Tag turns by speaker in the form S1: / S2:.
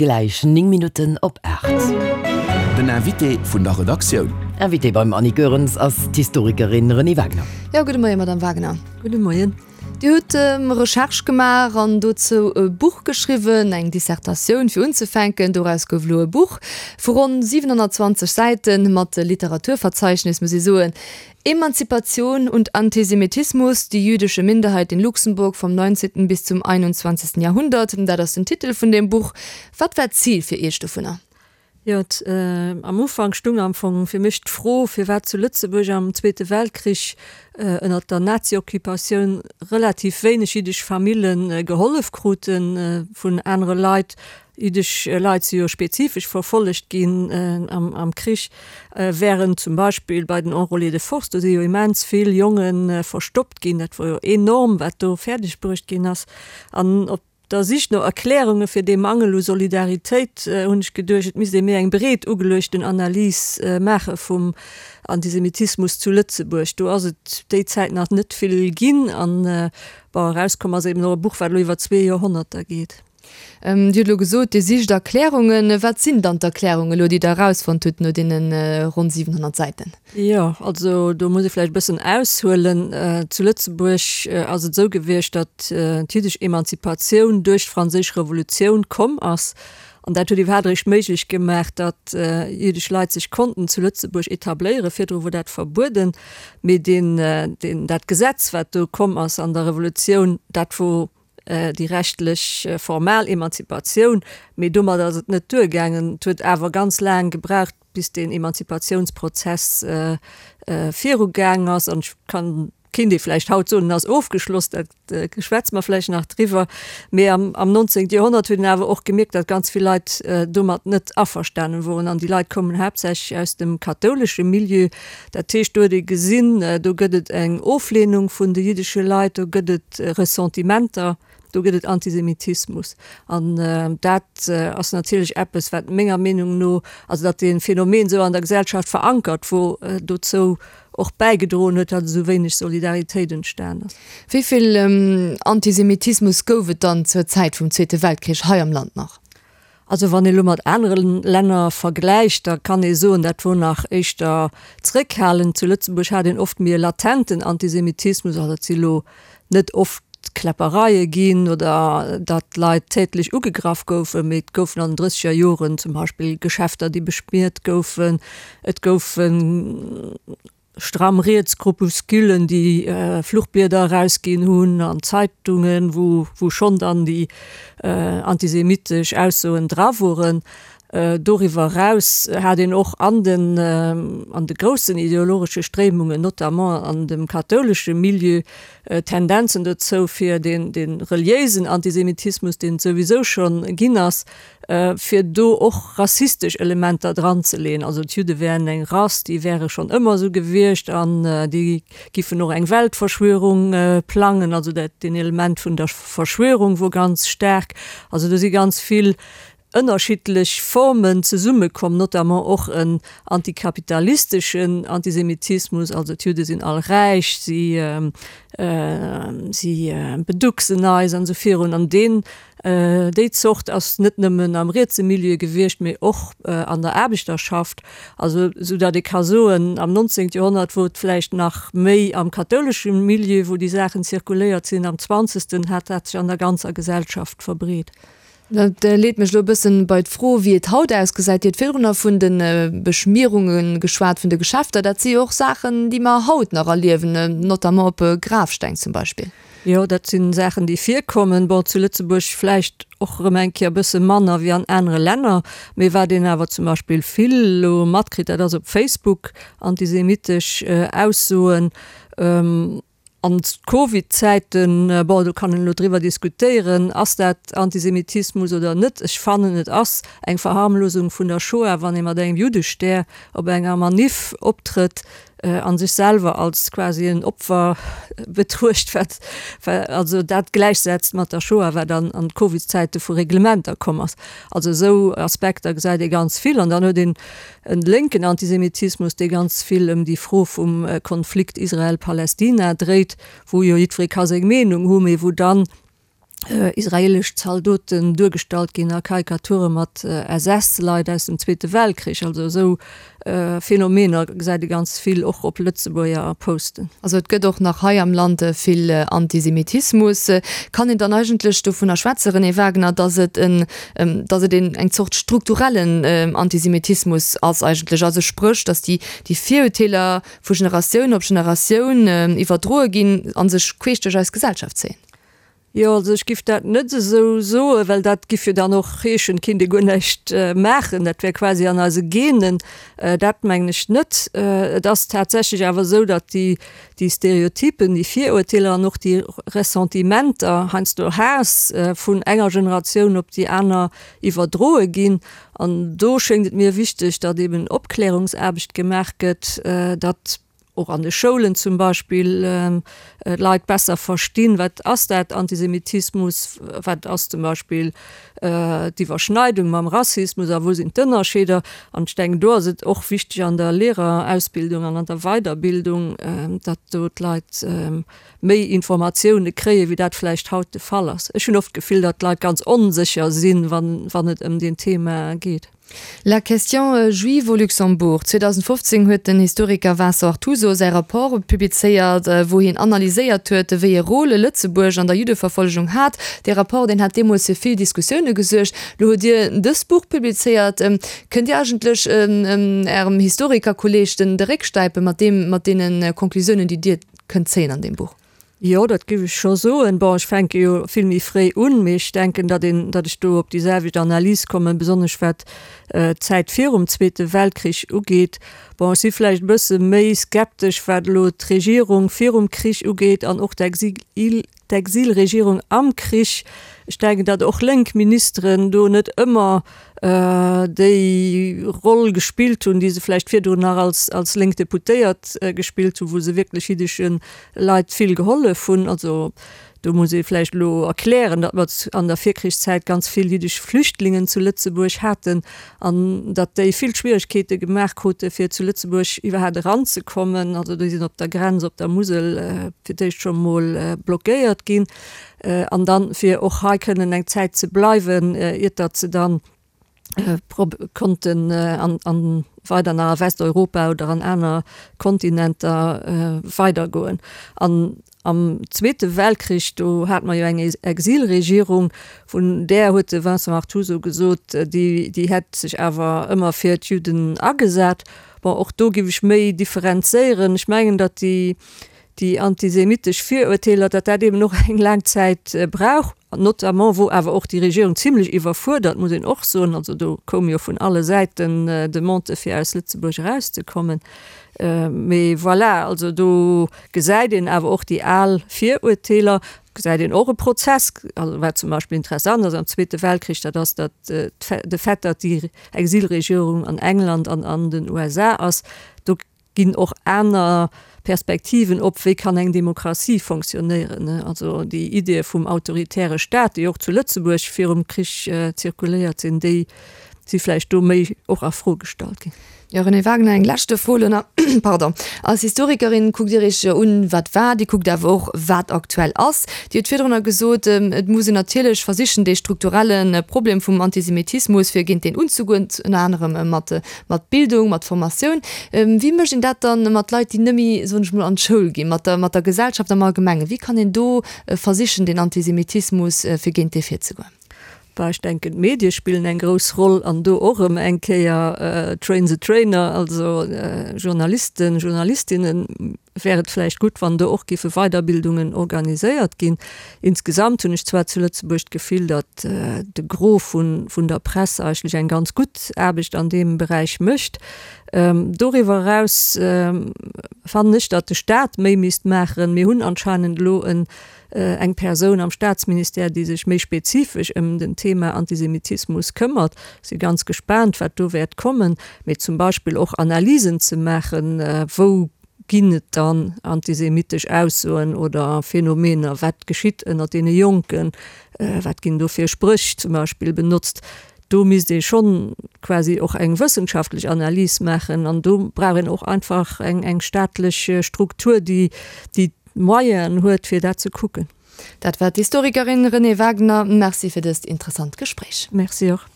S1: Gläich 9 Minutten op 8.
S2: Den Invité vun der Redaktioun.
S1: Invitée beim Annie Goerens ass d'Historikerin Renée Wagner.
S3: Jo, gudde Moien, Madame Wagner.
S4: Gudde Moien.
S3: Dir hutt Recherche gemaach an dozou e Buch geschriwwen, eng Dissertatioun fir unzefänken. Doraus gouf elo e Buch vu ronn 720 Säiten, mat Literaturverzeichnis, muss ee soen. Emanzipation und Antisemitismus, die jüdische Minderheit in Luxemburg vom 19. bis zum 21. Jahrhundert, dat ass den Titel vun deem Buch. Wat war d'Zil fir Iech dovunner?
S4: Jo, am Ufank stung am Fong fir mech d'Fro, firwat zu Lëtzebuerg am Zweete Weltkrich ënnert der Nazi-Occupatioun relativ wéineg jiddesch Famille gehollef krute vun anere Leit, Jiddesch Leit si jo spezifesch verfollegt ginn am Krich, wärend zum Beispill bei den Enrôlés de force, do si jo immens vill Jonge verstoppt ginn. Dat wor jo enorm, wat do fäerdeg bruecht ginn ass. An op der Sich no Erklärunge fir dee Mangel u Solidaritéit hunn ech geduecht, et misst ee méi eng breet ugeluechten Analys maache vum Antisemitismus zu Lëtzebuerg. Do ass et déi Zäit nach net vill ginn. An bon, erauskomm ass eben och e Buch, wat elo iwwer zwee Joerhonnerter geet.
S3: Dir hutt elo gesot, Dir sicht Erklärungen. Wat sinn dann d'Erklärungen elo, déi Der erausfonnt hutt no deene ronn 700 Säiten?
S4: Jo, also do muss ee vläicht e bëssen aushuelen. Zu Lëtzebuerg ass et esou gewiescht, datt d'jiddesch Emanzipatioun duerch d'Franséisch Revolutioun komm ass. An dat huet iwwerhaapt eréischt méiglech gemaach, datt jiddesch Leit sech konnten zu Lëtzebuerg etabléieren. Virdru wor dat verbueden. Mee deen, deen, dat Gesetz, wat do komm ass an der Revolutioun, dat wor déi rechtlech formal Emanzipatioun, mee domat ass et net duergaangen. Et huet awer ganz laang gebraucht, bis deen Emanzipatiounsprozess virugaang ass. An ech kann, kéint ee vläicht haut soen, en ass ofgeschloss, dat schwätze mer vläicht nach driwwer. Mee am 19. Joerhonnert huet een awer och gemierkt, datt ganz vill Leit domat net averstanen woren. An déi Leit koumen haaptsächlech aus dem kathoulesche Milieu. Dat heescht, do huet ee gesinn, do gëtt et eng Oflehnung vun de jiddesche Leit, do gëtt et Ressentimenter, do gëtt et Antisemitismus. An dat ass natierlech eppes, wat menger Meenung no, also datt dee Phänomen esou an der Gesellschaft verankert wor, dozou och bäigedroen huet, datt esou wéineg Solidaritéit entstan ass.
S3: Wéi vill Antisemitismus gouf et dann zur Zäit vum Zweete Weltkrich hei am Land nach?
S4: Also wann ee lo mat anere Länner vergläicht, da kann ee soen, dat wor nach éischter zréckhalend. Zu Lëtzebuerg hat een oft méi e latenten Antisemitismus, also et si lo net oft Kläppereie ginn oder datt Leit tätlech ugegraff goufen, mee et goufen an den drësseger Joren zum Beispill Geschäfter, déi beschmiert goufen, et goufen Stramm riets Groupusculen, déi Fluchblieder erausginn hunn an Zeitungen, wou wou schonn dann déi antisemitesch Aussoen dra woren. Doriwwer eraus hat een och an den an de groussen ideologesche Stréimungen, notamment an dem kathoulesche Milieu, Tendenzen dozou, fir deen dee reliéisen Antisemitismus, deen et souwisou schonn ginn ass, fir do och rassistesch Elementer dranzeleeën. Also d'Judde wären eng Rass, déi wäre schonn ëmmer esou gewiescht an déi giffen och eng Weltverschwörung plangen. Also dat, deen Element vun der Verschwörung wor ganz staark. Also do si ganz vill ënnerschiddlech Formen zesummekomm, notamment och en antikapitalisteschen Antisemitismus, also d'Judde sinn all räich, si si beducksen eis an esou virun. An deen Déi Zort ass net nëmmen am rietse Milieu gewiescht, mee och an der Aarbechterschaft. Also esou datt ee ka soen, am 19. Joerhonnert wor et vläicht nach méi am kathoulesche Milieu, wou déi Saachen zirkuléiert sinn, am zwanzegsten hat dat sech an der ganzer Gesellschaft verbreet.
S3: Dat leet mech elo e bëssen bei d'Fro, wéi et haut ausgesäit. Dir hutt virdrunner vun de Beschmierunge geschwat, vun de Geschäfter. Dat si jo och Saachen, déi mer haut nach erliewen, notamment op Grafsteng zum Beispill.
S4: Jo, dat si Saachen, déi virkommen. Bon, zu Lëtzebuerg vläicht och erëm eng Kéier e bësse manner wéi an anere Länner. Mee wat een awer zum Beispill vill elo matkritt, dat ass op Facebook antisemitesch Aussoen. An d'Covid-Zäiten, bon, do kann een elo driwwer diskutéieren, ass dat Antisemitismus oder net? Ech fannen, et ass eng Verharmlosung vun der Shoah, wann ee mat engem Juddestär op enger Maniff optrëtt. a sech selwer als quasi en Opfer betruecht, wat also dat gläichsetzt mat der Shoah, wat an an Covid-Zäite vu Reglementer komm ass. Also esou Aspekter gesäit ee ganz vill. An dann huet een e lénken Antisemitismus, dee ganz vill ëm déi Fro vum Konflikt Israel-Palästina dréit, wou jo jiddweree ka seng Meenung hu, mee wou dann. Israeelesch Zaldoten duergestallt ginn a Karikature mat SS-Leit aus dem Zweete Weltkrich. Also esou Phänomener gesäit ee ganz vill och op Lëtzebuerger Posten.
S3: Also et gëtt och nach hei am Land vill Antisemitismus. Kann een dann eigentlech dovunner schwätze, Renée Wagener, datt et en, datt et een eng Zort strukturellen Antisemitismus ass eigentlech? Also spréch, datt déi déi Virurteeler vu Generatioun op Generatioun iwwerdroe ginn a sech queesch duerch eis Gesellschaft zéien?
S4: Jo, also ech giff dat net esou soen, well dat giff jo dann och heeschen, et kinnt ee guer näischt maachen, dat wär quasi an eise Genen. Dat mengen ech net. Et ass tatsächlech awer esou, datt déi, déi Stereotypen, déi Virurteeler an och déi Ressentimenter, heiansdo Haass vun enger Generatioun op déi aner iwwerdroe ginn. An do schéngt et mir wichteg, datt eben Opklärungsaarbecht gemaach gëtt, datt och an de Schoulen zum Beispill d'Leit besser verstinn, wat ass dat Antisemitismus, wat ass zum Beispill d'Iwwerschneidung mam Rassismus a wou sinn d'Ënnerscheeder. An ech denken, do ass et och wichteg an der Lehrerausbildung an an der Weiderbildung, datt do d'Leit méi Informatioune kréien, wéi dat vläicht haut de Fall ass. Ech hunn oft d'Gefill, datt d'Leit ganz onsécher sinn, wann et ëm deen Thema geet.
S3: La question juive au Luxembourg, 2015 huet den Historiker Vincent Artuso säi Rapport publizéiert, wou hien analyséiert huet, wéi e Rôle Lëtzebuerg an der Juddeverfollegung hat. Dee Rapport, deen hat deemools fir vill Diskussioune gesuergt. Lo hutt Dir dëst Buch publizéiert. Kënnt Dir eigentlech Ärem Historikerkolleeg den de Réck stäipe mat deem, mat deene Conclusiounen, déi Dir kënnt zéien an deem Buch?
S4: Jo, dat géif ech scho soen. Bon, ech fänke jo vill méi fréi un, mee ech denken, datt een, datt ech do op déi selwecht Analys kommen, besonnesch wat d'Zäit virum Zweete Weltkrich ugeet. Bon, ech si vläicht e bësse méi skeptesch, wat elo d'Regierung virum Krich ugeet an och d'Exil, d'Exilregierung am Krich. Ech denken, datt och lénk Ministeren do net ëmmer déi Roll gespillt hunn, déi se vläicht virdrun nach als, als lénk Deputéiert gespillt hunn, wou se wierklech jiddesche Leit vill gehollef hunn. Also do muss ee vläicht elo erklären, datt mer an der Virkrichszäit ganz vill jiddesch Flüchtlingen zu Lëtzebuerg haten an datt déi vill Schwieregkeete gemaach krute fir zu Lëtzebuerg iwwerhaapt eranzekommen. Also déi sinn op der Grenz op der Musel fir d'éischt scho mol blockéiert ginn. An dann, fir och hei kënnen eng Zäit ze bleiwen, iert datt se dann konnten an weider nach a Westeuropa oder an aner Kontinenter weidergoen. An am Zweete Weltkrich, do hate mer jo eng Exilregierung, vun där huet de Vincent Artuso gesot, déi déi hätt sech awer ëmmer fir d'Judden agesat. Bon, och do giff ech méi differenzéieren. Ech mengen, datt déi déi antisemitesch Virurteeler, datt dat eben och eng laang Zäit brauch, notamment wor awer och déi Regierung zimlech iwwerfuerdert, muss een och soen. Also do koum jo vun alle Säiten Demandë fir aus Lëtzebuerg erauszekommen. Mee voilà, also do gesäit een awer och déi al Virurteeler, gesäit een och e Prozess, also wat zum Beispill interessant ass am Zweete Weltkrich, dat ass, datt de Fait, datt déi Exilregierung an England an an den USA ass, do ginn och aner Perspektiven op, wéi kann eng Demokratie fonctionnéieren. Also déi Ideeë vum autoritäre Staat, déi och zu Lëtzebuerg virum Krich zirkuléiert sinn, déi si vläicht do méi och a Fro gestallt ginn.
S3: Jo, Renée Wagener, eng leschte Fro elo nach. Pardon. Als Historikerin kuckt Dir Iech jo un, wat war, Dir kuckt awer och, wat aktuell ass. Dir hutt virdrunner gesot, et muss een natierlech versichen, dee strukturelle Problem vum Antisemitismus, fir géint deen unzegoen, ënner anerem mat Mat Bildung, mat Formatioun. Wéi mécht een dat dann mat Leit, déi net méi, soen ech mol, an d'Schoul ginn, mat der, mat der Gesellschaft am Allgemengen? Wéi kann een do versichen, den Antisemitismus, fir géint dee virzegoen?
S4: Bah, ech denken, d'Medie spillen eng grouss Roll an do och erëm eng Kéier train the trainer, also Journalisten, Journalistinnen wär et vläicht gutt, wann do och géife Weiderbildungen organiséiert ginn. Insgesamt hunn ech zwar zu Lëtzebuerg d'Gefill, datt de Gros vun der Press eigentlech eng ganz gutt Aarbecht an deem Beräich mécht. Doriwwer eraus fannen ech, datt de Staat méi misst maachen. Mir hunn anscheinend elo eng Persoun am Staatsministère, déi sech méi spezifesch ëm den Thema Antisemitismus këmmert. Si ganz gespaant, wat do wäert kommen. Mee zum Beispill och Analysen ze maachen, wou ginn et dann antisemitesch Aussoen oder Phänomener, wat geschitt ënnert deene Jonken, wat ginn do fir Spréch zum Beispill benotzt. Do misst ee schonn quasi och eng wëssenschaftlech Analys maachen an do brauch een och einfach eng staatlech Struktur, déi déi d'Moyenen huet, fir dat ze kucken.
S3: Dat war d'Historikerin Renée Wagner. Merci fir dëst interessant Gespréich.
S4: Merci och.